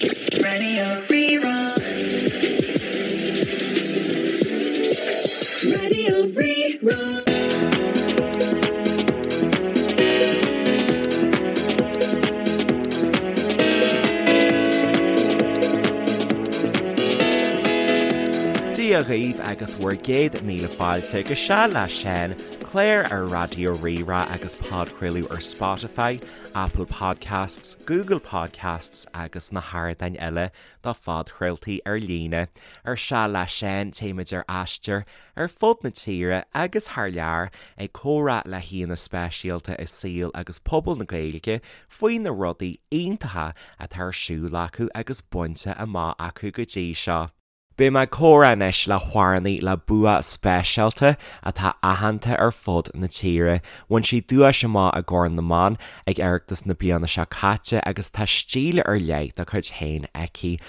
Raidió Rí-Rá. Raidió Rí-Rá. Dia dhaoibh agus bhur gcéad míle fáilte go Seal le Seán, clár ar Raidió Rí-Rá agus podchraoladh ar Spotify, Apple Podcasts, Google Podcasts agus na hardáin eile do phodchraoltaí ar líne. Ar Seal le Seán, téimid ar aistear ar fud na tíre agus thar lear ag comhrá le haíonna speisialta i saol agus pobal na Gaeilge faoi na rudaí iontacha atá ar siúl acu agus bainte amach acu go dtí seo. Beidh mé ag comhrá anois le hamhránaí le bua speisialta atá aitheanta ar fud na tíre. Bhain sí duais amach i gCorn na mBan ag Oireachtas na bliana seo caite agus tá stíl ar leith dá cuid féin aici,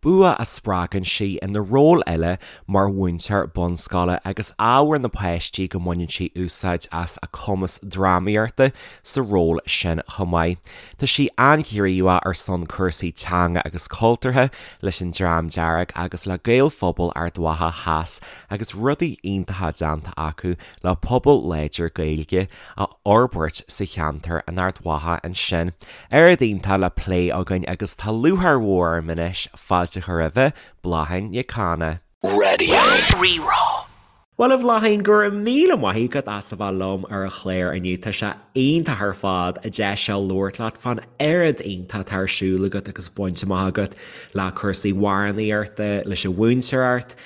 bua a spreagann sí ina ról eile mar mhúinteoir bunscoile agus ábhar na páistí go mbaineann sí úsáid as a cumas drámaíochta sa ról sin chomh maith. Tá sí an-ghníomhach ar son cúrsaí teanga agus cultúrtha leis an Dream Dearg agus le Gaelphobal Ard Mhacha Theas agus rudaí iontacha déanta acu le pobal láidir Gaeilge a fhorbairt sa cheantar in Ard Mhacha ansin. Oiread iontach le plé againn agus tá lúcháir mhór orm anois fáilte a chur roimhe, Bláithín Nic Cana. Radio Rí-Rá. Bhuel a Bhláithín, go raibh míle maith agat as a bheith liom ar an chlár inniu. Tá sé iontach ar fad an deis seo labhairt leat fán oiread iontach atá ar siúl agat agus bainte amach agat le cúrsaí amhránaíochta, leis an mhúinteoireacht,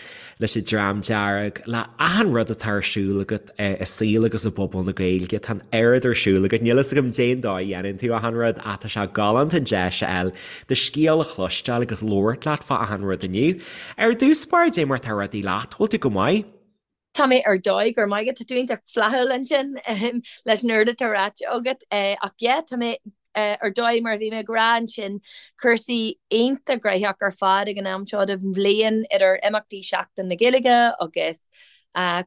leis an Dream Dearg, le achan rud atá ar siúl agat i saol agus i bpobal na Gaeilge. Tá an oiread ar siúl agat. Níl fhios agam cén dóigh a dhéanann tú achan rud ach tá sé galánta an deis a fháil do scéal a chloisteáil agus labhairt leat fá achan rud inniu. Ar dtús báire, dé mar atá rudaí leat, bhfuil tú go maith? Tá mé ar dóigh, go raibh maith agat, tá tú iontach flaithiúil ansin leis an oiread atá ráite agat. Ach yeah, tá mé ar dóigh mar a bhí mé ag rá ansin, cúrsaí iontach gnóthach ar fad ag an am seo den bhliain idir imeachtaí Seachtain na Gaeilge agus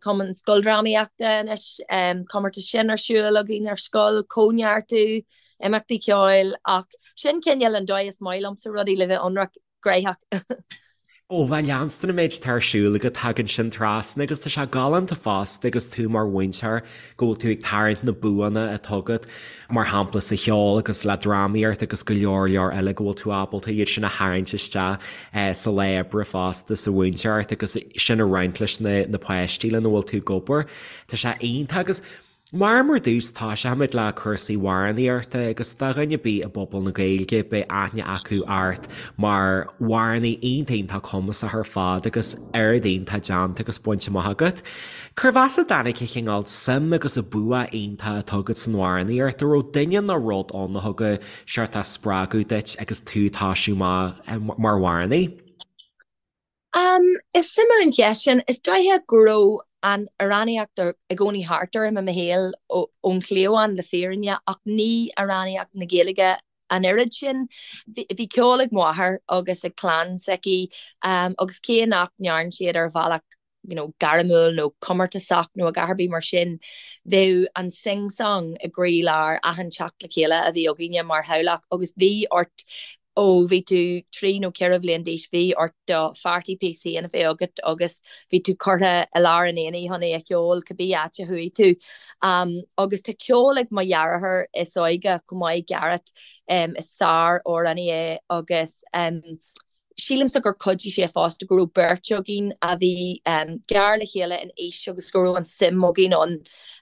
Cumann Scoildrámaíochta anois, comórtas sin ar siúl againn ar scoil, cóineartú, imeachtaí ceoil ach sin cineál an dóigh is maith liomsa rudaí le bheith ionraic, gnóthach. Ó, bhuel, leanstan an méid atá ar siúl agat, tagann sin trasna agus tá sé galánta fosta agus tú mar mhúinteoir go bhfuil tú ag tarraingt na buanna atá agat, mar shampla sa cheol agus le drámaíocht agus go leor leor eile go bhfuil tú ábalta iad sin a tharraingt isteach sa lá oibre fosta sa mhúinteoireacht agus sin a roinnt leis na páistí lena bhfuil tú ag obair. Tá sé iontach agus Mar mar dtús toiseoimid le cúrsaí amhránaíochta agus do dhuine ar bith i bpobal na Gaeilge beidh aithne acu ort mar amhránaí iontach iontach cumasach ar fad agus oiread iontach déanta agus bainte amach agat. Cérbh as a dtáinig an cineál suim agus an bua iontach atá agat san amhránaíocht? An raibh duine nó rud ann a thug seort spreagadh duit agus tú ag toisiú amach mar amhránaí? Is suimiúil an cheist sin. Is dóiche go raibh an amhránaíocht i gcónaí thart orm i mo shaol ón chliabhán le fírinne ach ní amhránaíocht na Gaeilge an oiread sin. Bhí ceol ag mo mháthair agus ag clann s'aici agus cé nach ndearn siad ar bhealach you know, gairmiúil nó comórtasach nó a dhath ar bith mar sin, bheadh an sing-song i gcroílár achan teacht le chéile a bhí againne mar theaghlach agus bhí ort ó bhí tú 3 nó 4 bhliain d'aois, bhí ort do pharty piece féin a bheith agat agus bhí tú curtha i lár an aonaigh chun é a cheol cibé áit a chuaigh tú. Agus tá ceol ag mo dheartháir is óige chomh maith, Garrett, is sár-amhránaí é agus sílimse gur chuidigh sé fosta go raibh beirt againn a bhí gar le chéile in aois agus go raibh an suim againn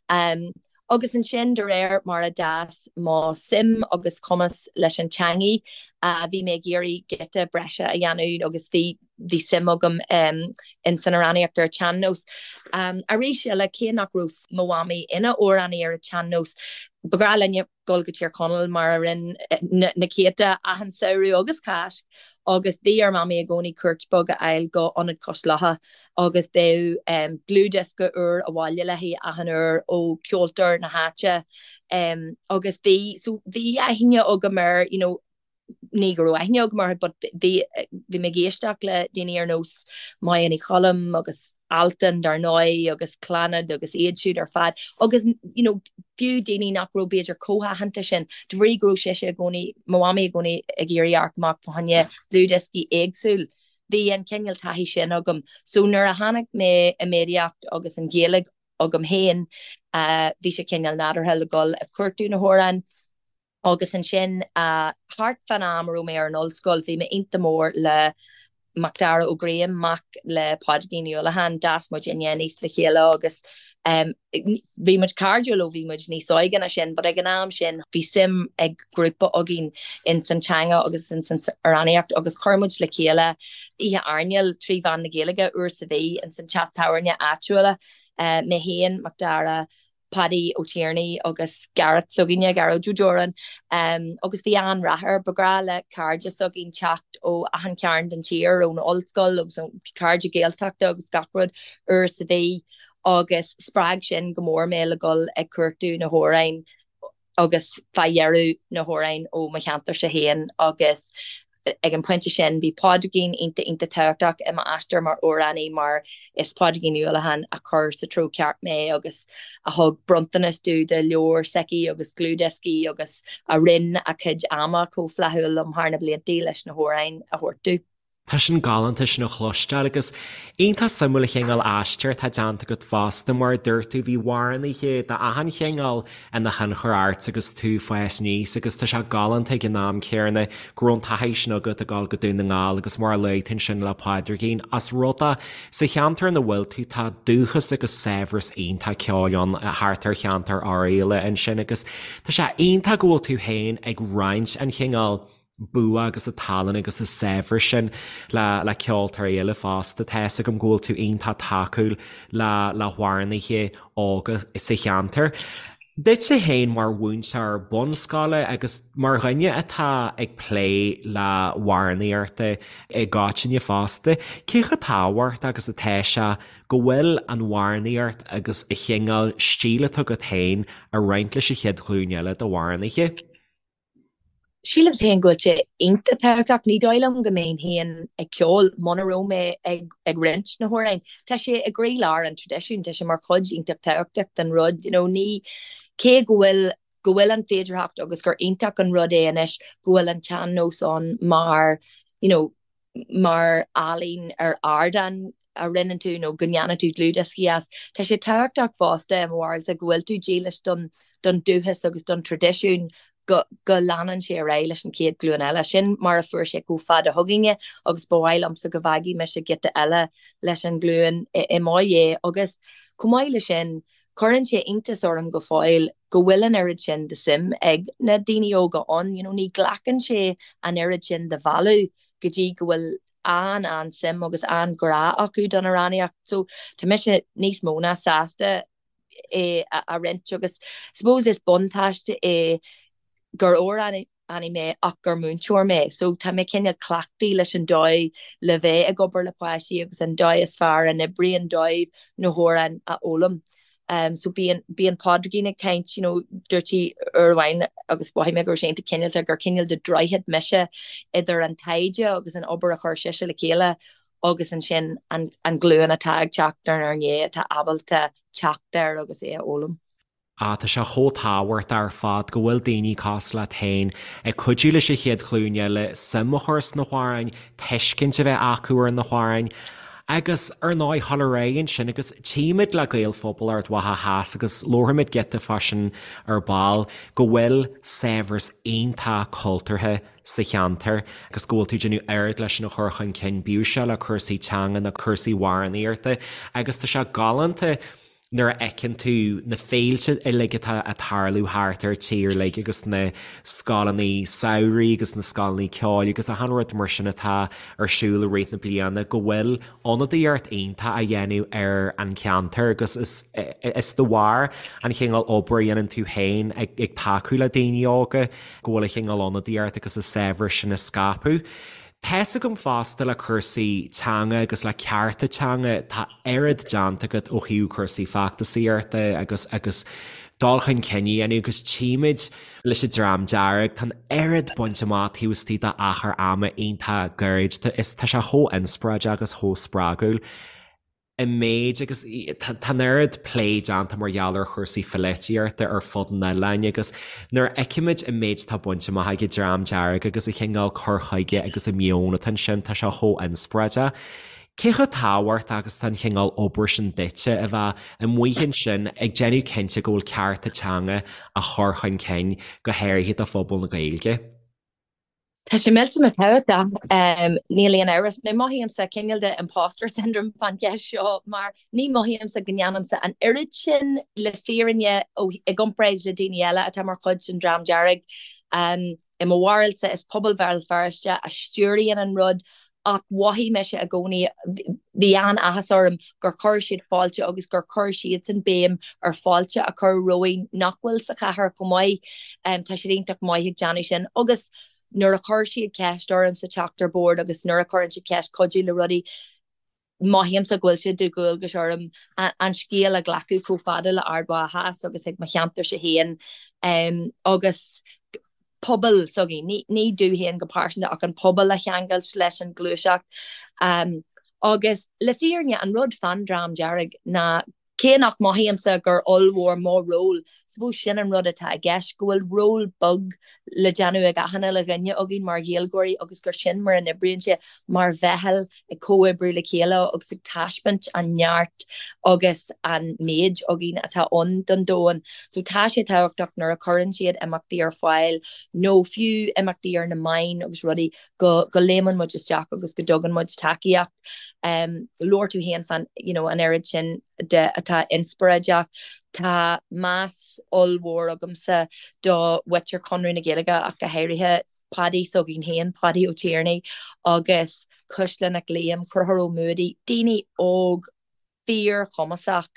ann. Agus ansin de réir mar a d'fhás mo suim agus cumas leis an teangaidh, bhí mé ag iarraidh giota breise a dhéanamh agus bhí bhí suim agam in san amhránaíocht ar an tsean-nós. Arís eile, cé nach raibh mo mhamaí ina amhránaí ar an tsean-nós, ba ghnách linne dul go Tír Chonaill mar a rinne na céadta achan samhradh agus Cáisc agus bhí ar Mamaí i gcónaí cuairt beag a fháil go Ionad Cois Locha agus bheadh dlúthdhiosca úr abhaile léi achan uair ó cheoltóir na háite agus bhí so bhí aithne agam ar you know ní go raibh aithne agam orthu but bhí bhí mé ag éisteacht le daoine ar nós Máire Ní Choilm agus. Altan dar ndóigh agus Clannad agus iad siúd ar fad agus you know fiú daoine nach raibh b'fhéidir chomh haitheanta sin de bhrí go raibh sise i gcónaí, mo mhamaí i gcónaí ag iarraidh amharc amach fá choinne dlúthdhioscaí éagsúil. Bhí an cineál taithí sin agam. So nuair a tháinig mé i méadaíocht agus an Ghaeilge agam féin bhí sé cineál nádúrtha le dhul ag cuartú na hamhráin. Agus ansin, thart fán am a raibh mé ar an ollscoil, bhí mé iontach mór le Macdara Ó Graham, mac le Pádraigín Ní Uallacháin. D'fhás muid aníos le chéile agus bhí muid cairdiúil ó bhí muid níos óige ná sin, but ag an am sin bhí suim ag grúpa againn ins an teanga agus ins an amhránaíocht agus chuir muid le chéile oíche airneáil trí mheán na Gaeilge uair sa mhí ins an teach tábhairne áitiúil, mé féin, Macdara, Paddy Ó Tiarnaigh agus Gareth s'againne, Gearóid Ó Dúráin, agus bhí an-rath air. Ba ghnách le cairde s'againn teacht ó achan chearn den tír, ón ollscoil agus ó cairde Gaeltachta agus gach rud uair sa mhí agus spreag sin go mór mé le dhul ag cuartú na hamhráin agus fá dheireadh na hamhráin ó mo cheantarsa féin agus Ag an pointe sin, bhí Pádraigín iontach iontach tábhachtach i m'aistear mar amhránaí mar is Pádraigín Ní Uallacháin a chuir sa treo ceart mé agus a thug bronntanas domh de leabhar s'aici agus dlúthdhioscaí agus a roinn a cuid ama chomh flaithiúil liom thar na blianta leis na hamhráin a thabhairt domh. Tá sin galánta sin a chloisteáil agus iontach suimiúil an chineál aistir atá déanta agat fosta mar a dúirt tú bhí amhránaithe d'achan chineál ina thionchar ort agus tú ag fás aníos agus tá sé galánta ag an am céanna go raibh an taithí sin agat ag dul go Dún na nGall agus mar a luaigh tú ansin le Pádraigín as rud é sa cheantar ina bhfuil tú tá dúchas agus saibhreas iontach ceoil ann thart ar cheantar Oirialla ansin agus tá sé iontach go bhfuil tú féin ag roinnt an chineál bua agus an tallann agus an saibhreas sin le le ceoltóirí eile fosta. Tá fhios agam go bhfuil tú iontach tacúil le le hamhránaithe óga sa cheantar. Duitse féin mar mhúinteoir bunscoile agus mar dhuine atá ag plé le hamhránaíocht i gcoitinne fosta, cé chomh tábhachtach agus atá sé go bhfuil an amhránaíocht agus an chineál stíl atá agat féin a roinnt leis an chéad ghlúin eile d'amhránaithe? Sílim féin go bhfuil sé iontach tábhachtach. Ní dóigh liom go mbeinn féin ag ceol muna raibh mé ag roinnt na hamhráin. Tá sé i gcroílár an traidisiúin, tá sé mar chuid iontach tábhachtach den rud. You know, ní, cé go bhfuil, go bhfuil an féidearthacht agus gur iontach an rud é anois go bhfuil an tsean-nós ann mar, you know, mar ealaín ar ardán a roinneann tú nó go ndéanann tú dlúthdhioscaí as. Tá sé tábhachtach fosta i mo bharúilsa go bhfuil tú dílis don don dúchas agus don traidisiún go go leanann sé ar aghaidh leis an chéad ghlúin eile. Sin mar a fuair sé chomh fada chugainne agus ba mhaith liomsa go bhfágfaidh mise giota eile leis an ghlúin i mo dhiaidh agus chomh maith leis sin cuireann sé iontas orm go fóill go bhfuil an oiread sin de suim ag na daoine óga ann. You know, ní ghlacann sé an oiread sin de mhealladh go dtí go bhfuil an-an-suim agus an-ghrá acu don amhránaíocht. So tá mise níos mó ná sásta é a roinnt agus suppose is buntáiste é gur amhránaí mé ach gur múinteoir mé. So tá mé cineál cleachtaithe leis an dóigh le bheith ag obair le páistí agus an dóigh is fearr a n-oibríonn dóibh na hamhráin a fhoghlaim. So bíonn, bíonn Pádraigín ag caint, you know, dúirt sí uair amháin agus mhothaigh mé go raibh sé iontach cineálta gur cineál de droichead mise idir an taighde agus an obair a chuir sise le chéile agus ansin an, an ghlúin atá ag teacht inár ndiaidh atá ábalta teacht air agus é a fhoghlaim. Ah, tá sé chomh tábhachtach ar fad go bhfuil daoine cosúil leat féin ag cuidiú leis an chéad ghlúin eile suim a chur sna hamhráin, tuiscint a bheith acu ar na hamhráin agus, ar ndóigh, dul ar aghaidh ansin agus tchímid le Gaelphobal Ard Mhacha Theas agus labharfaimid giota fá sin ar ball, go bhfuil saibhreas iontach cultúrtha sa cheantar agus go bhfuil tú ag déanamh oiread leis sin a chur chun cinn, bíodh sé le cúrsaí teanga nó cúrsaí amhránaíochta agus tá sé galánta nuair a fheiceann tú na féilte uilig atá ag tarlú thart ar tír uilig agus na scoileanna samhraidh agus na scoileanna ceoil agus achan rud mar sin atá ar siúl i rith na bliana go bhfuil ionadaíocht iontach á dhéanamh ar an cheantar agus is is de bharr an chineál obair a dhéanann tú féin ag ag tacú le daoine óga go bhfuil an chineál ionadaíocht agus an saibhreas sin á scaipeadh. Tá's agam fosta le cúrsaí teanga agus le cearta teanga, tá oiread déanta agat ó thaobh cúrsaí feachtasaíochta agus agus dul chun cinn a dhéanamh agus tchímid leis an Dream Dearg, tá an oiread bainte amach taobh istigh d'achar ama iontach gairid, is tá sé chomh inspioráideach agus chomh spreagúil. An méid agus tá an oiread plé déanta mar gheall ar chúrsaí pholaitíochta ar fud an oileáin agus nuair a fheicimid an méid atá bainte amach ag an Dream Dearg agus an chineál cur chuige agus an meon atá ansin, tá sé chomh inspioráideach. Cé chomh tábhachtach agus atá an chineál obair sin duitse a bheith amuigh ansin ag déanamh cinnte go bhfuil cearta teanga á chur chun cinn, go háirithe do phobal na Gaeilge? Tá sé millteanach tábhachtach, níl aon amhras. Now mothaímse cineál de imposter syndrome fán cheist seo mar ní mothaímse go ndéanaimse an oiread sin le fírinne i gcomparáid le daoine eile atá mar chuid den Dream Dearg. I mo bharúilsa is pobal Bhéal Feirste a stiúraíonn an rud Ach mhothaigh mise i gcónaí, bhí an-áthas orm gur chuir siad fáilte agus gur chuir siadsan béim ar fáilte a chur romhainn nach bhfuil sa chathair chomh maith. Tá siad iontach maith ag déanamh sin. Agus nuair a chuir siad ceist orm sa teacht ar bord agus nuair a chuireann siad ceist cuidiú le rudaí, mothaímse go bhfuil sé de dhualgas orm an scéal a ghlacadh chomh fada le Ard Mhacha Theas agus ag mo cheantarsa féin agus pobal s'againn, ní domh féin go pearsanta ach an pobal a cheangailt leis an ghluaiseacht. Agus le fírinne, an rud fán Dream Dearg ná cé nach mothaímse gur ollmhór mo ról, suppose sin an rud atá i gceist, go bhfuil ról beag le déanamh ag achan uile dhuine againn mar Ghaeilgeoirí agus gur sin mar a n-oibríonn sé, mar mheitheal ag comhoibriú le chéile agus ag taispeáint an neart agus an méid againn atá ann don domhan. So tá sé tábhachtach nuair a chuireann siad imeachtaí ar fáil nó fiú imeachtaí ar na meáin agus rudaí go go léimeann muid isteach agus go dtugann muid tacaíocht. Um, labhair tú féin fán you know, an oiread sin de atá inspioráideach. Tá meas ollmhór agamsa do mhuintir Chonradh na Gaeilge ach go háirithe Paddy s'againn féin, Paddy Ó Tiarnaigh agus Cuisle Nic Liam, Conchúr Ó Muadaigh, daoine óg fíorchumasach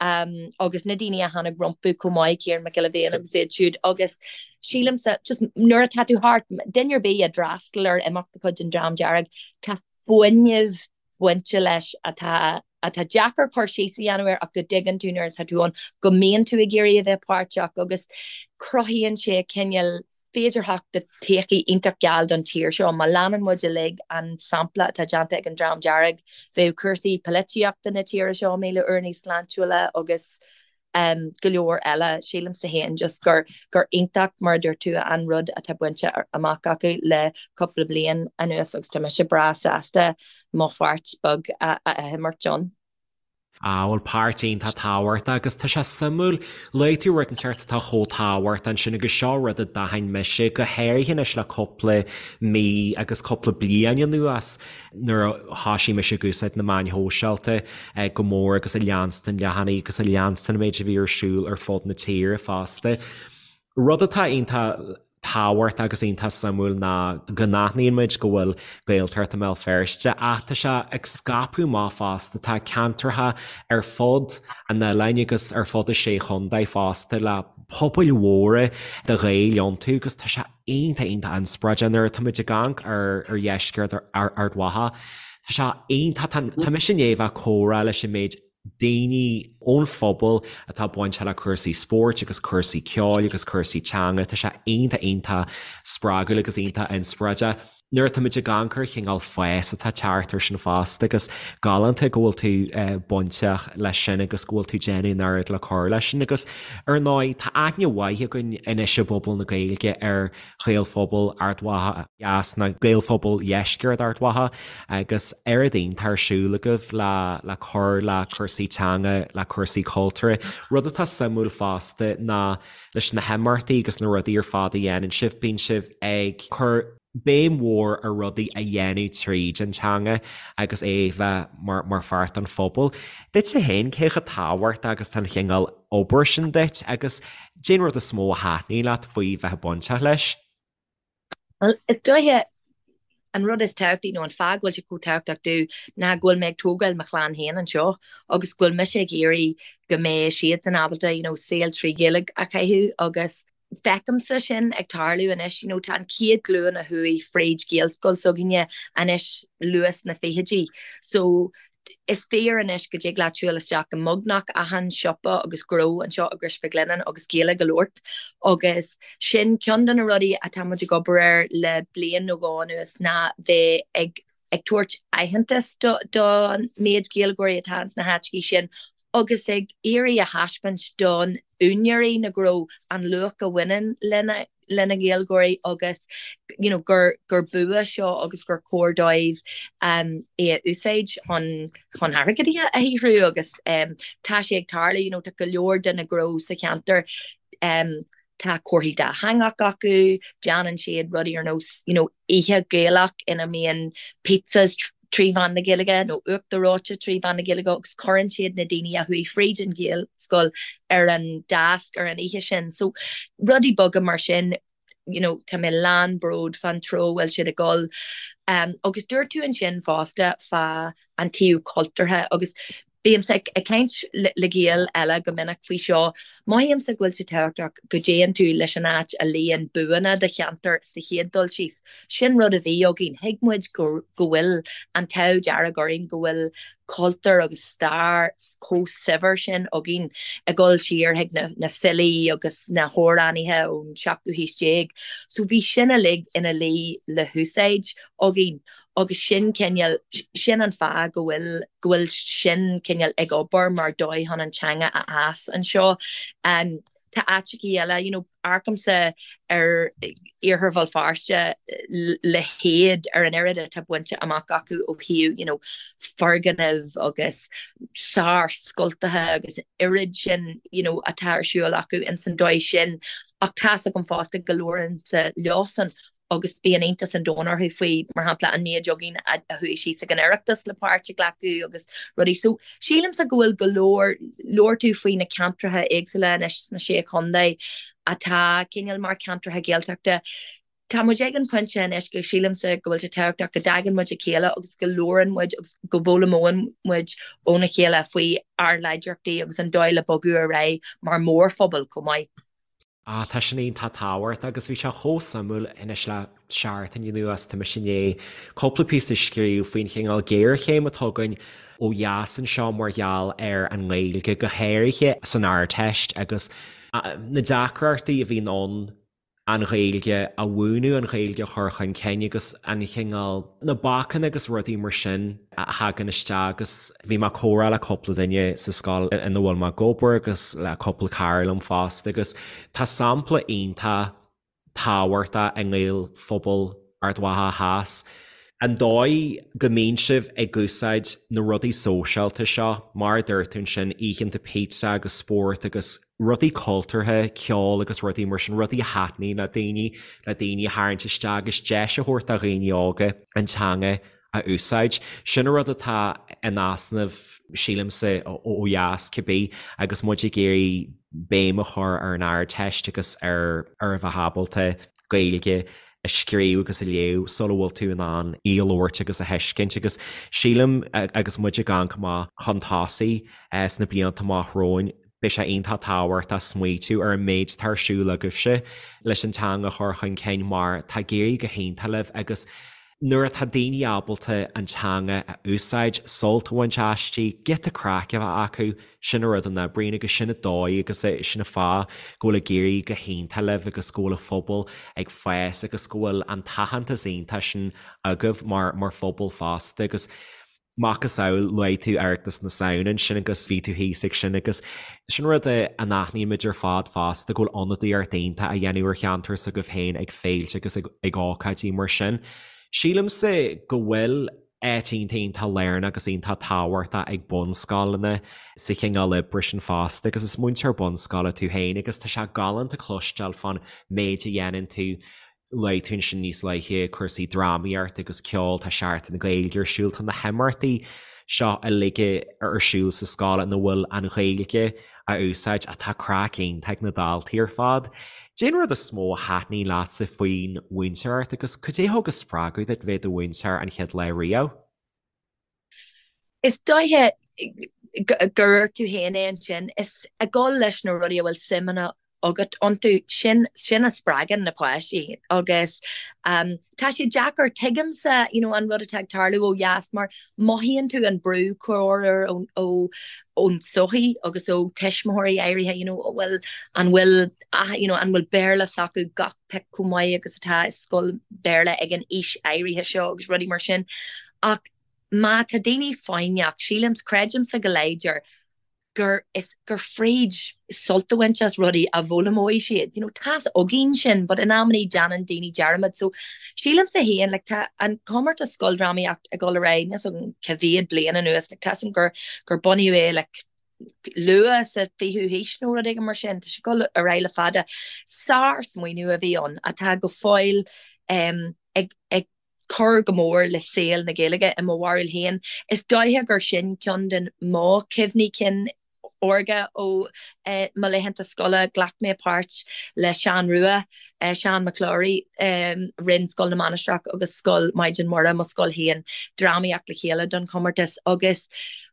agus na daoine a tháinig rompu chomh maith, Ciarán Mac Giolla Bhéin agus iad siúd agus sílimse just nuair atá tú thart, duine ar bith a d'fhreastail ar imeacht de chuid an Dream Dearg, tá fuinneamh bainte leis atá atá deacair cur síos a dhéanamh air ach go dtuigeann tú nuair atá tú ann go mbíonn tú ag iarraidh a bheith páirteach agus cruthaíonn sé cineál féidearthacht de todhchaí iontach geal don tír seo. Má leanann muid uilig an sampla atá déanta ag an Dream Dearg, bheadh cúrsaí polaitíochta na tíre seo 1,000 uair níos sláintiúla agus go leor eile. Sílimse féin just gur gur iontach, mar a dúirt tú, an rud atá bainte amach acu le cúpla bliain anuas agus tá mise breá sásta mo pháirt beag a imirt ann. Á, bhuel, páirt iontach tábhachtach agus tá sé suimiúil, luaigh tú rud inteacht atá chomh tábhachtach ansin agus seo rud a d'aithin mise, go háirithe anois le cúpla mí agus cúpla bliain anuas nuair a thoisigh mise ag úsáid na meáin shóisialta go mór agus ag leanstan leathanaigh agus ag leanstan an méid a bhí ar siúl ar fud na tíre fosta. Rud atá iontach tábhachtach agus iontach suimiúil ná go n-aithníonn muid go bhfuil Gaeltacht i mBéal Feirste ach tá sé ag scaipeadh amach fosta, tá ceantracha ar fud an oileáin agus ar fud na Sé Chontae fosta le pobail mhóra de Ghaeil iontu agus tá sé iontach iontach inspioráideach nuair atá muid ag amharc ar ar dheisceart Ard Mhacha. Tá sé iontach, tá mise i ndiaidh a bheith ag comhrá leis an méid daoine ón phobal atá bainteach le cúrsaí spóirt agus cúrsaí ceoil agus cúrsaí teanga. Tá sé iontach iontach spreagúil agus iontach inspioráideach. Nuair atá muid ag amharc ar chineál fás atá ag teacht air sin fosta agus galánta go bhfuil tú bainteach leis sin agus go bhfuil tú déanamh an oiread le cur leis sin agus ar ndóigh tá aithne mhaith againn anois i bpobal na Gaeilge ar Ghaelphobal Ard Mhacha Theas nó Gaelphobal Dheisceart Ard Mhacha agus oiread iontach ar siúl agaibh le le cur le cúrsaí teanga, le cúrsaí cultúrtha. Rud atá suimiúil fosta ná leis na himeachtaí agus na rudaí ar fad a dhéanann sibh, bíonn sibh ag cur béim mhór ar rudaí a dhéanamh tríd an teanga agus é a bheith mar mar pháirt den phobal. Duitse féin, cé chomh tábhachtach agus tá an chineál obair sin duit agus Cén rud is mó a thaitníonn leat faoi bheith bainteach leis? Bhuel, is dóiche an rud is tábhachtaí nó an fáth go bhfuil sé chomh tábhachtach domh ná go bhfuil mé ag tógáil mo chlann féin anseo agus go bhfuil mise ag iarraidh go mbeidh siadsan ábalta you know, saol trí Ghaeilge a chaitheamh agus feicimse sin ag tarlú anois, you know, tá an chéad ghlúin a chuaigh fríd Ghaelscoil s'againne anois luath sna fichidí so Is fíor anois go dtig leat siúl isteach i mbeagnach achan siopa agus gnó anseo i gCrois Mhic Lionnáin agus Gaeilge a labhairt agus sin ceann de na rudaí atá muid ag obair air le bliain nó dhó anuas ná bheith ag. ag tabhairt aitheantas don méid Gaeilgeoirí atá ins na háiteachaí sin agus ag iarraidh a thaispeáint don úinéirí na ngnó an luach a bhaineann lena lena nGaeilgeoirí agus you know gur gur bua seo agus gur cóir dóibh um, é a úsáid chun chun airgead a shaothrú agus um, tá sé ag tarlú you know, tá go leor de na gnó sa cheantar um, tá comharthaí dátheangach acu, déanann siad rudaí ar nós you know, oíche Gaelach ina mbíonn pizzas trí mheán na Gaeilge nó uachtar reoite trí mheán na Gaeilge agus cuireann siad na daoine a chuaigh fríd an Ghaelscoil ar an deasc ar an oíche sin. So rudaí beaga mar sin you know, tá mé lán bród fán treo a bhfuil siad ag dul. Um, agus dúirt tú ansin fosta fá an taobh cultúrtha agus Bímse ag caint le Gaeil eile go minic faoi seo. Mothaímse go bhfuil sé tábhachtach go dtéann tú leis an áit a luíonn buanna do cheantair sa chéad dul síos. Sin rud a bhí againn. Thuig muid go bhfuil an t-ádh dearg orainn go bhfuil cultúr agus stair chomh saibhir sin againn ag dul siar chuig na filí agus na hamhránaithe ón seachtú haois déag. So bhí sin uilig ina luí le húsáid againn. Agus sin cineál, sin an fáth go bhfuil, go bhfuil sin cineál ag obair mar dóigh chun an teanga a fhás anseo. Tá áiteachaí eile, you know, amharcaimse ar Iarthar Bhéal Feirste le héad ar an oiread atá bainte amach acu ó thaobh, you know, foirgnimh agus sárscoltacha agus an oiread sin, you know, atá ar siúl acu ins an dóigh sin. Ach tá's agam fosta go labhraímse leosan agus bíonn iontas an domhain orthu faoi, mar shampla, an méid againn a chuaigh síos ag an Oireachtas le páirt a ghlacadh agus rudaí. So, sílimse go bhfuil go leor, labhair tú faoi na ceantracha éagsúla anois sna Sé Chontae atá cineál mar cheantracha Gaeltachta. Tá muid ag an phointe anois go sílimse go bhfuil sé tábhachtach go dtagann muid a chéile agus go labhrann muid agus go bhfoghlaimeoidh muid óna chéile faoi ár láidreachtaí agus an dóigh le bogadh ar aghaidh mar mhórphobal chomh maith. Ah, tá sin iontach tábhachtach agus bhí sé chomh suimiúil anois le seachtain anuas, tá mise i ndiaidh cúpla píosa a scríobh faoin chineál géarchéim atá againn ó dheas anseo mar gheall ar an nGaeilge, go háirithe san Ardteist agus na deacrachtaí a bhíonn ann an Ghaeilge a mhúineadh, an Ghaeilge a chur chun cinn agus an chineál, na bacanna agus rudaí mar sin a thagann isteach agus bhí mé ag comhrá le cúpla duine sa scoil ina bhfuil mé ag obair agus le cúpla cara liom fosta agus tá sampla iontach tábhachtach i nGaelphobal Ard Mhacha Theas. An dóigh go mbíonn sibh ag úsáid na rudaí sóisialta seo, mar a dúirt tú ansin, oícheanta pizza agus spórt agus rudaí cultúrtha, ceol agus rudaí mar sin, rudaí a thaitníonn le daoine, le daoine a tharraingt isteach agus deis a thabhairt do dhaoine óga an teanga a úsáid. Sin an rud atá in easnamh, sílimse, ó dheas, cibé, agus muid ag iarraidh béim a chur ar an Ardteist agus ar ar a bheith ábalta Gaeilge a scríobh agus a léamh sula bhfuil tú in ann í a labhairt agus a thuiscint agus sílim agus muid ag amharc amach chun tosaigh sna blianta amach romhainn, beidh sé iontach tábhachtach smaoitiú ar an méid atá ar siúl agaibhse leis an teanga a chur chun cinn mar tá ag éirí go hiontach libh agus Nuair atá daoine ábalta an teanga a úsáid, sult a bhaint aisti, giota craic a bheith acu, sin an rud a n-oibríonn agus sin an dóigh agus sin an fáth go bhfuil ag éirí go hiontach libh agus go bhfuil an phobal ag fás agus go bhfuil an t-aitheantas iontach sin agaibh mar mar phobal fosta agus Macasamhail, luaigh tú Oireachtas na Samhna ansin agus bhí tú thíos ag sin agus sin rud a n-aithnímid ar fad fosta, go bhfuil ionadaíocht iontach á dhéanamh ar cheantar s'agaibh féin ag féilte agus ag ócáidí mar sin. Sílimse go bhfuil áit iontach iontach lárnach agus iontach tábhachtach ag bunscoileanna sa chineál oibre sin fosta agus is múinteoir bunscoile tú féin agus tá sé galánta cloisteáil fán méid a dhéanann tú Luaigh tú ansin níos luaithe cúrsaí drámaíochta agus ceoil, tá Seachtain na Gaeilge ar siúl, tá na himeachtaí seo uilig ar siúl sa scoil ina bhfuil an Ghaeilge á úsáid ach tá craic iontach ag na daltaí ar fad. Cad é an rud is mó a thaitníonn leatsa faoin mhúinteoireacht agus cad é a thug an spreagadh duit bheith i do mhúinteoir an chéad lá riamh? Is dóiche gur dhúirt tú féin é ansin, is ag dul leis na rudaí a bhfuil suim agat iontu, sin sin a spreagann na páistí agus tá sé deacair, tuigimse you know an rud atá ag tarlú ó dheas mar mothaíonn tú an brú corruair ó ó ón tsochaí agus ó tuismitheoirí áirithe you know bhfuil an bhfuil you know an bhfuil Béarla s'acu gach pic chomh maith agus atá i scoil Béarla ag an aois áirithe seo agus rudaí mar sin. Ach má tá daoine foighneach, sílim, creidimse go láidir gur is gur fríd sult a bhaint as rudaí a bhfoghlaimeoidh siad. You know, tá's againn sin, but in amannaí déanann daoine dearmad. So sílimse féin, like, tá an comórtas scoildrámaíocht ag dul ar aghaidh, níl 's agam cá mhéad bliain anuas, like, tá's agam gur gur bunaíodh é like luath sa 20ú haois nó rud éigin mar sin, tá sé ag dul ar aghaidh le fada. Sár-smaoineamh a bhí ann atá go fóill um, ag, ag cur go mór le saol na Gaeilge i mo bharúil féin. Is dóiche gur sin ceann de mo chuimhní cinn órga ó mo laethanta scoile. Ghlac mé páirt le Seán Rua, Seán McClaughry, rinne Scoil na Mainistreach agus Scoil Maighdean Muire, mo scoil féin, drámaíocht le chéile don chomórtas agus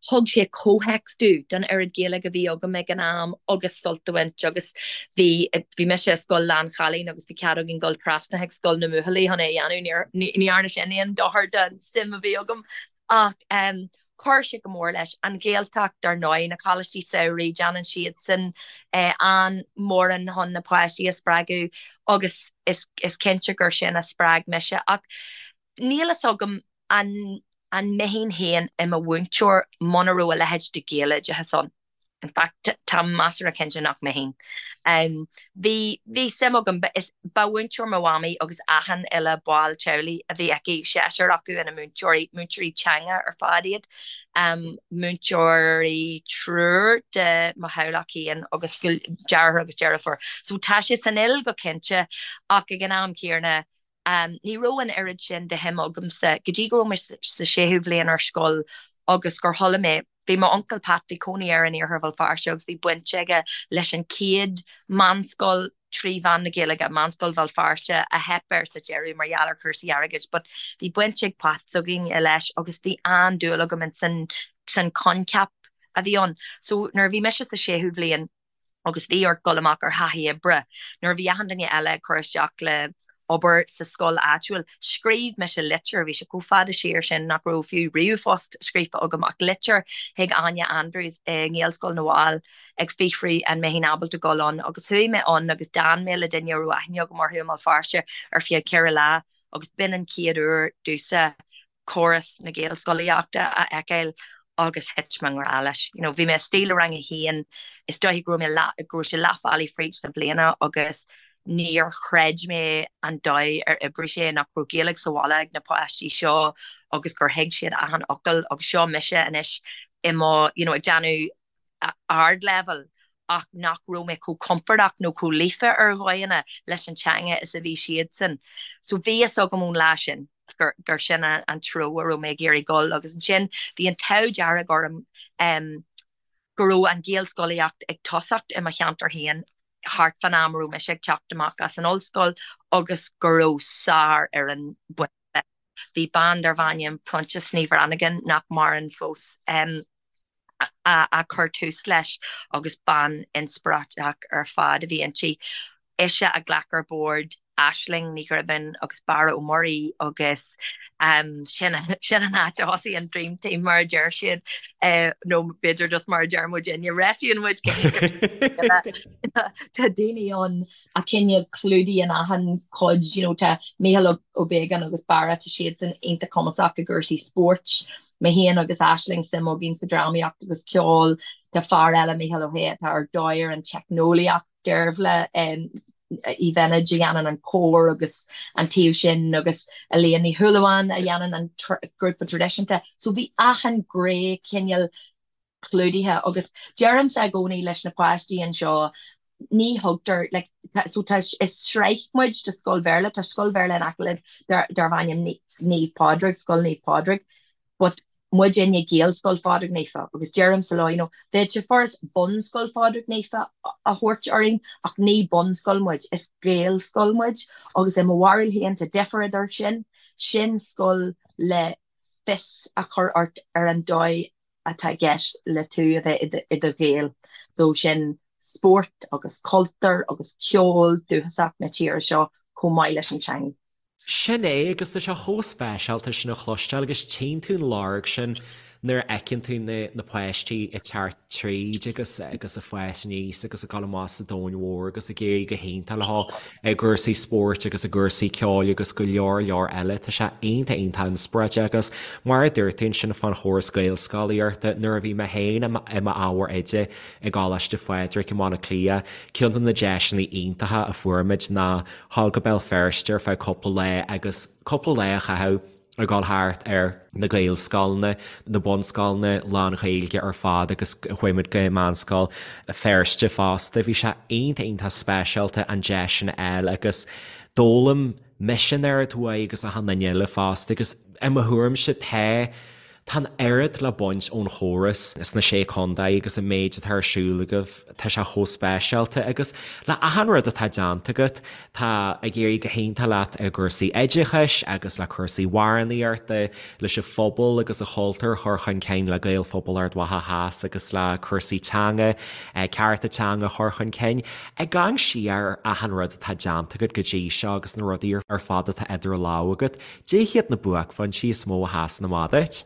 thug sé comhthéacs domh don oiread Gaeilge a bhí agam ag an am agus sult a bhaint agus bhí, bhí mise i scoil lán-chailín agus bhí cead againn dul trasna chuig scoil na mbuachaillí chun é a dhéanamh, ní dhearna sin aon dochar don suim a bhí agam ach chuir sé go mór leis. An Ghaeltacht, dar ndóigh, na coláistí samhraidh, déanann siadsan an-mhórán chun na páistí a spreagadh agus is cinnte gur sin a spreag mise ach níl fhios agam an an mbeinn féin i mo mhúinteoir muna raibh a leithéid de Ghaeloideachas ann. In fact, táim measartha cinnte nach mbeinn. Bhí, bhí suim agam, ba, is, ba mhúinteoir mo mhamaí agus achan uile ball teaghlaigh a bhí aici, seisear acu ina múinteoirí, múinteoirí teanga ar fad iad, múinteoirí triúr de mo theaghlach féin agus deartháir agus deirfiúr. So tá sé san fhuil go cinnte ach ag an am céanna, Ní raibh an oiread sin de shuim agamsa go dtí go raibh mé sa séú bhliain ar scoil agus gur chuala mé, bhí m'uncail Pat, bhí cónaí air in iarthar Bhéal Feirste agus bhí baint aige leis an chéad meánscoil trí mheán na Gaeilge, Meánscoil Bhéal Feirste, a theip air sa deireadh mar gheall ar chúrsaí airgid but bhí baint ag Pat s'againne leis agus bhí an-dúil agam in san san coincheap a bhí ann. So nuair a bhí mise sa séú bhliain, agus bhí ort dul amach ar thaithí oibre nuair a bhí achan duine eile ag cur isteach le obair sa scoil áitiúil. Scríobh mise litir, bhí sé chomh fada siar sin nach raibh fiú ríomhphost scríofa agam ach litir chuig Áine Andrews i nGaelscoil na bhFál ag fiafraí an mbeinn ábalta dul ann agus chuaigh mé ann agus d'fhan mé le duine a raibh aithne agam orthu i mBéal Feirste ar feadh ceithre lá agus b'in an chéad uair domhsa córas na Gaelscolaíochta a fheiceáil agus thit mé i ngrá leis. You know, bhí mé istigh le rang a haon, is dóiche go raibh mé leath, go raibh sé leath bhealaigh fríd na bliana agus níor chreid mé an dóigh ar oibrigh sé, nach raibh Gaeilge sa bhaile ag na páistí seo agus gur thuig siad achan fhocal agus seo mise anois i mo, you know, ag déanamh ardleibhéal ach nach raibh mé chomh compordach nó chomh líofa ar dhóigheanna leis an teanga is a bhí siadsan. So bhí fhios agam ón lá sin gur gur sin an treo a raibh mé ag iarraidh dul agus ansin bhí an t-ádh dearg orm go raibh an Ghaelscolaíocht ag tosacht i mo cheantar féin thart fán am a raibh mise ag teacht amach as an ollscoil agus go raibh sárfhoireann bainte leis. Bhí bean darbh ainm Proinsias Ní Bhrannagáin, nach maireann fós, a chuir tús leis agus bean inspioráideach ar fad a bhí inti. Ise a ghlac ar bord Aisling Ní Ghribín agus Barra Ó Muirí agus sin sin an áit a thosaigh an Dream Team mar a deir siad nó b'fhéidir just mar a deir muidinne, réitíonn muid Tá daoine ann a cineál clúdaíonn achan chuid, you know, tá Mícheál Ó Beagáin agus Barra, tá siadsan iontach cumasach i gcúrsaí spóirt. Mé féin agus Aisling, suim againn sa drámaíocht agus ceol. Tá fear eile, Mícheál Ó hAodha, atá ar dóigh ar an teicneolaíocht, Deirbhile Uí Bheinid a dhéanann an cór agus an taobh sin agus Elaine Ní Shúilleabháin a dhéanann an grúpa traidisiúnta. So bhí achan ghné cineál clúdaithe agus deirimse i gcónaí leis na páistí anseo ní thugtar like so tá is sraith muid de scoil Bhéarla, tá scoil Bhéarla in aice linn darb ainm Naomh Pádraig, Scoil Naomh Pádraig but muidinne Gaelscoil Phádraig Naofa agus deirimse leo you know bheadh sé furast Bunscoil Phádraig Naofa a thabhairt orainn ach ní bunscoil muid, is Gaelscoil muid agus i mo bharúil féin tá difear idir sin, sin scoil le fios a chur ort ar an dóigh atá i gceist le tú a bheith i do Ghael. So sin spórt agus cultúr agus ceol dúchasach na tíre seo chomh maith leis an teanga. Sin é, agus tá sé chomh speisialta sin a chloisteáil agus tchíonn tú an lorg sin. Nuair a fheiceann tú na na páistí ag teacht tríd agus agus ag fás aníos agus ag dul amach sa domhan mhór agus ag éirí go hiontach leo i gcúrsaí spóirt agus i gcúrsaí ceoil agus go leor leor eile, tá sé iontach iontach inspioráideach agus mar a dúirt tú ansin fán chóras Gaelscolaíochta, nuair a bhí mé féin i m'ábhar oide i gColáiste Phádraig i mBaile Átha Cliath, ceann de na deiseanna iontacha a fuair muid ná dhul go Béal Feirste ar feadh cúpla lá agus cúpla lá a chaitheamh ag dul thart ar na Gaelscoileanna, na bunscoileanna lán-Ghaeilge ar fad agus chuaigh muid go Meánscoil Feirste fosta. Bhí sé iontach iontach speisialta an deis sin a fháil agus d'fhoghlaim mise an oiread uaidh agus achan duine eile fosta agus i mo thuairimse tá Tá an oiread le baint ón chóras sna Sé Contae agus an méid atá ar siúl agaibh, tá sé chomh speisialta agus le achan rud atá déanta agat, tá ag éirí go hiontach leat i gcúrsaí oideachais agus le cúrsaí amhránaíochta, leis an phobal agus an chultúr a chur chun cinn le Gaelphobal Ard Mhacha Theas agus le cúrsaí teanga, cearta teanga a chur chun cinn. Ag amharc siar ar achan rud atá déanta agat go dtí seo agus na rudaí ar fad atá idir lámha agat, Cad iad na buaicphointí is mó a sheasann amach duit?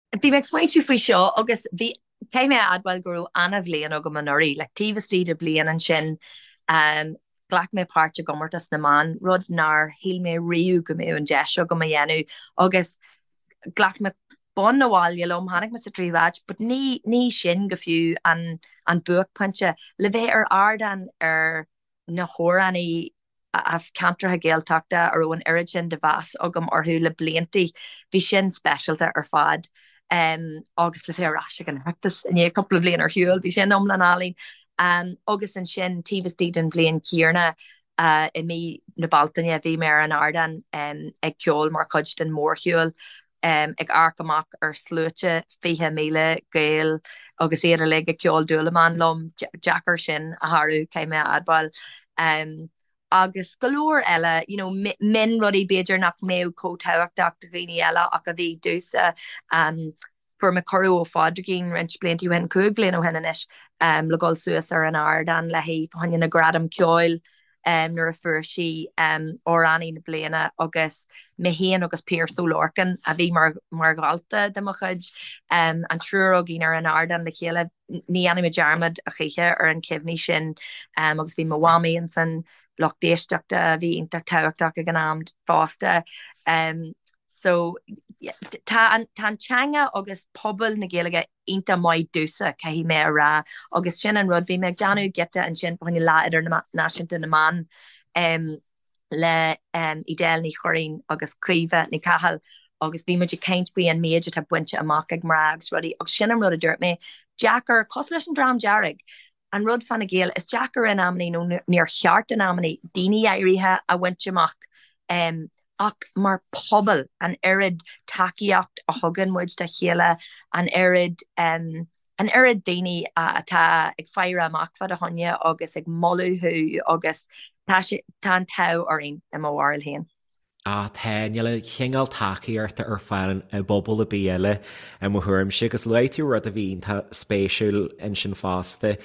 Bhí mé ag smaointiú faoi seo agus bhí, caithfidh mé a admháil go raibh ana-bhliain agam anuraidh, like taobh istigh de bliain ansin ghlac mé páirt i gcomórtas na mban, rud nár shíl mé riamh go mbeadh an deis agam a dhéanamh agus ghlac mé bonn abhaile liom, tháinig mé sa tríú háit, but ní, ní sin go fiú an, an buaicphointe. Le bheith ar ardán ar na hamhránaí as ceantracha Gaeltachta a raibh an oiread sin de mheas agam orthu le bliantaí, bhí sin speisialta ar fad. Agus le bheith ar ais ag an Oireachtas i ndiaidh cúpla bliain ar shiúl, bhí sin iomlán álainn. Agus ansin, taobh istigh den bhliain chéanna, i mí na Bealtaine, bhí mé ar an ardán ag ceol mar chuid den mhórshiúl ag amharc amach ar sluaite 20,000 Gael agus iad uilig ag ceol Dúlamán liom, deacair sin a shárú, caithfidh mé a admháil. Agus go leor eile, you know, mionrudaí b'fhéidir nach mbeadh chomh tábhachtach do dhaoine eile ach a bhí domhsa. Fuair mé cuireadh ó Phádraigín roinnt blianta ó shin, 5 bhliain ó shin anois, le dhul suas ar an ardán léi fá choinne na Gradam Ceoil. nuair a fuair sí Amhránaí na Bliana agus mé féin agus Pearse Ó Lorcáin, a bhí mar dhalta de mo chuid, an triúr againn ar an ardán le chéile. Ní dhéanfaidh mé dearmad a choíche ar an chuimhní sin agus bhí mo mhamaí insan lucht éisteachta a bhí iontach tábhachtach ag an am fosta. So tá an teanga agus pobal na Gaeilge iontach maith domhsa, caithfidh mé a rá, agus sin an rud, bhí mé ag déanamh giota ansin fá choinne Lá Idirnáisiúnta na mBan le Edel Ní Churraoin agus Caoimhe Ní Chathail agus bhí muid ag caint faoi an méid atá bainte amach ag mná agus rudaí agus sin an rud a dúirt mé, deacair, cosúil leis an Dream Dearg, an rud fá na Gaeil, is deacair in amannaí nó níor cheart in amannaí daoine áirithe a bhaint amach ach mar pobal, an oiread tacaíocht a thugann muid dá chéile, an oiread, an oiread daoine atá ag faire amach fá do choinne agus ag moladh thú agus tá sé, tá an t-ádh orainn i mo bharúil féin. Ah tá, níl an chineál tacaíochta ar fáil i bpobal ar bith eile i mo thuairimse agus luaigh tú rud a bhí iontach spéisiúil ansin fosta,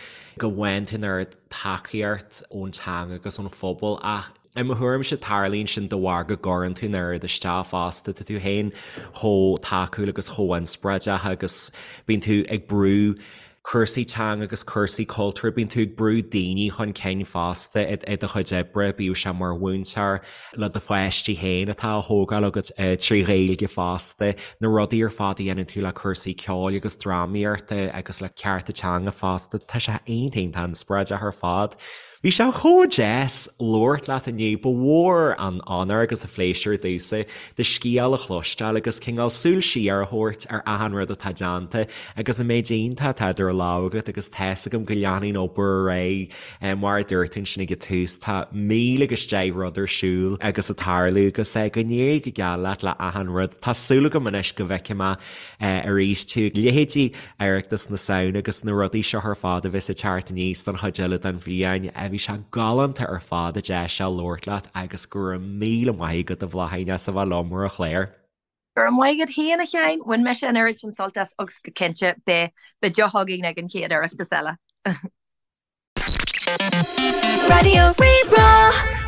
go bhfaigheann tú an oiread tacaíocht ón teanga agus ón phobal ach i mo thuairimse tarlaíonn sin de bharr go gcuireann tú an oiread isteach fosta, tá tú féin chomh tacúil agus chomh inspioráideach agus bíonn tú ag brú cúrsaí teanga agus cúrsaí cultúir, bíonn tú ag brú daoine chun cinn fosta i do chuid oibre, bíodh sé mar mhúinteoir, le do pháistí féin atá á thógáil agat trí Ghaeilge fosta, na rudaí ar fad a dhéanann tú le cúrsaí ceoil agus drámaíochta agus le cearta teanga fosta, tá sé iontach iontach inspioráideach ar fad. Bhí sé chomh deas labhairt leat inniu, ba mhór an onóir agus an phléisiúr domhsa do scéal a chloisteáil agus cineál súil siar a thabhairt ar achan rud atá déanta agus an méid iontach atá idir lámha agat agus tá's agam go leanfaidh an obair ar aghaidh mar a dúirt tú ansin ag an tús, tá 10,000 agus 10 rud ar siúl agus ag tarlú agus go n-éirí go geal leat le achan rud. Tá súil agam anois go bhfeicfidh mé arís tú, leithéidí Oireachtas na Samhna agus na rudaí seo ar fad a bheas ag teacht aníos don chuid eile den bhliain. Bhí sé galánta ar fad an deis seo labhairt leat agus go raibh míle maith agat a Bhláithín as a bheith liom ar an chlár. Go raibh maith agat féin a Sheáin, bhain mise an oiread sin sult as agus go cinnte beidh deoch againn ag an chéad Oireachtas eile. Raidió Rí-Rá.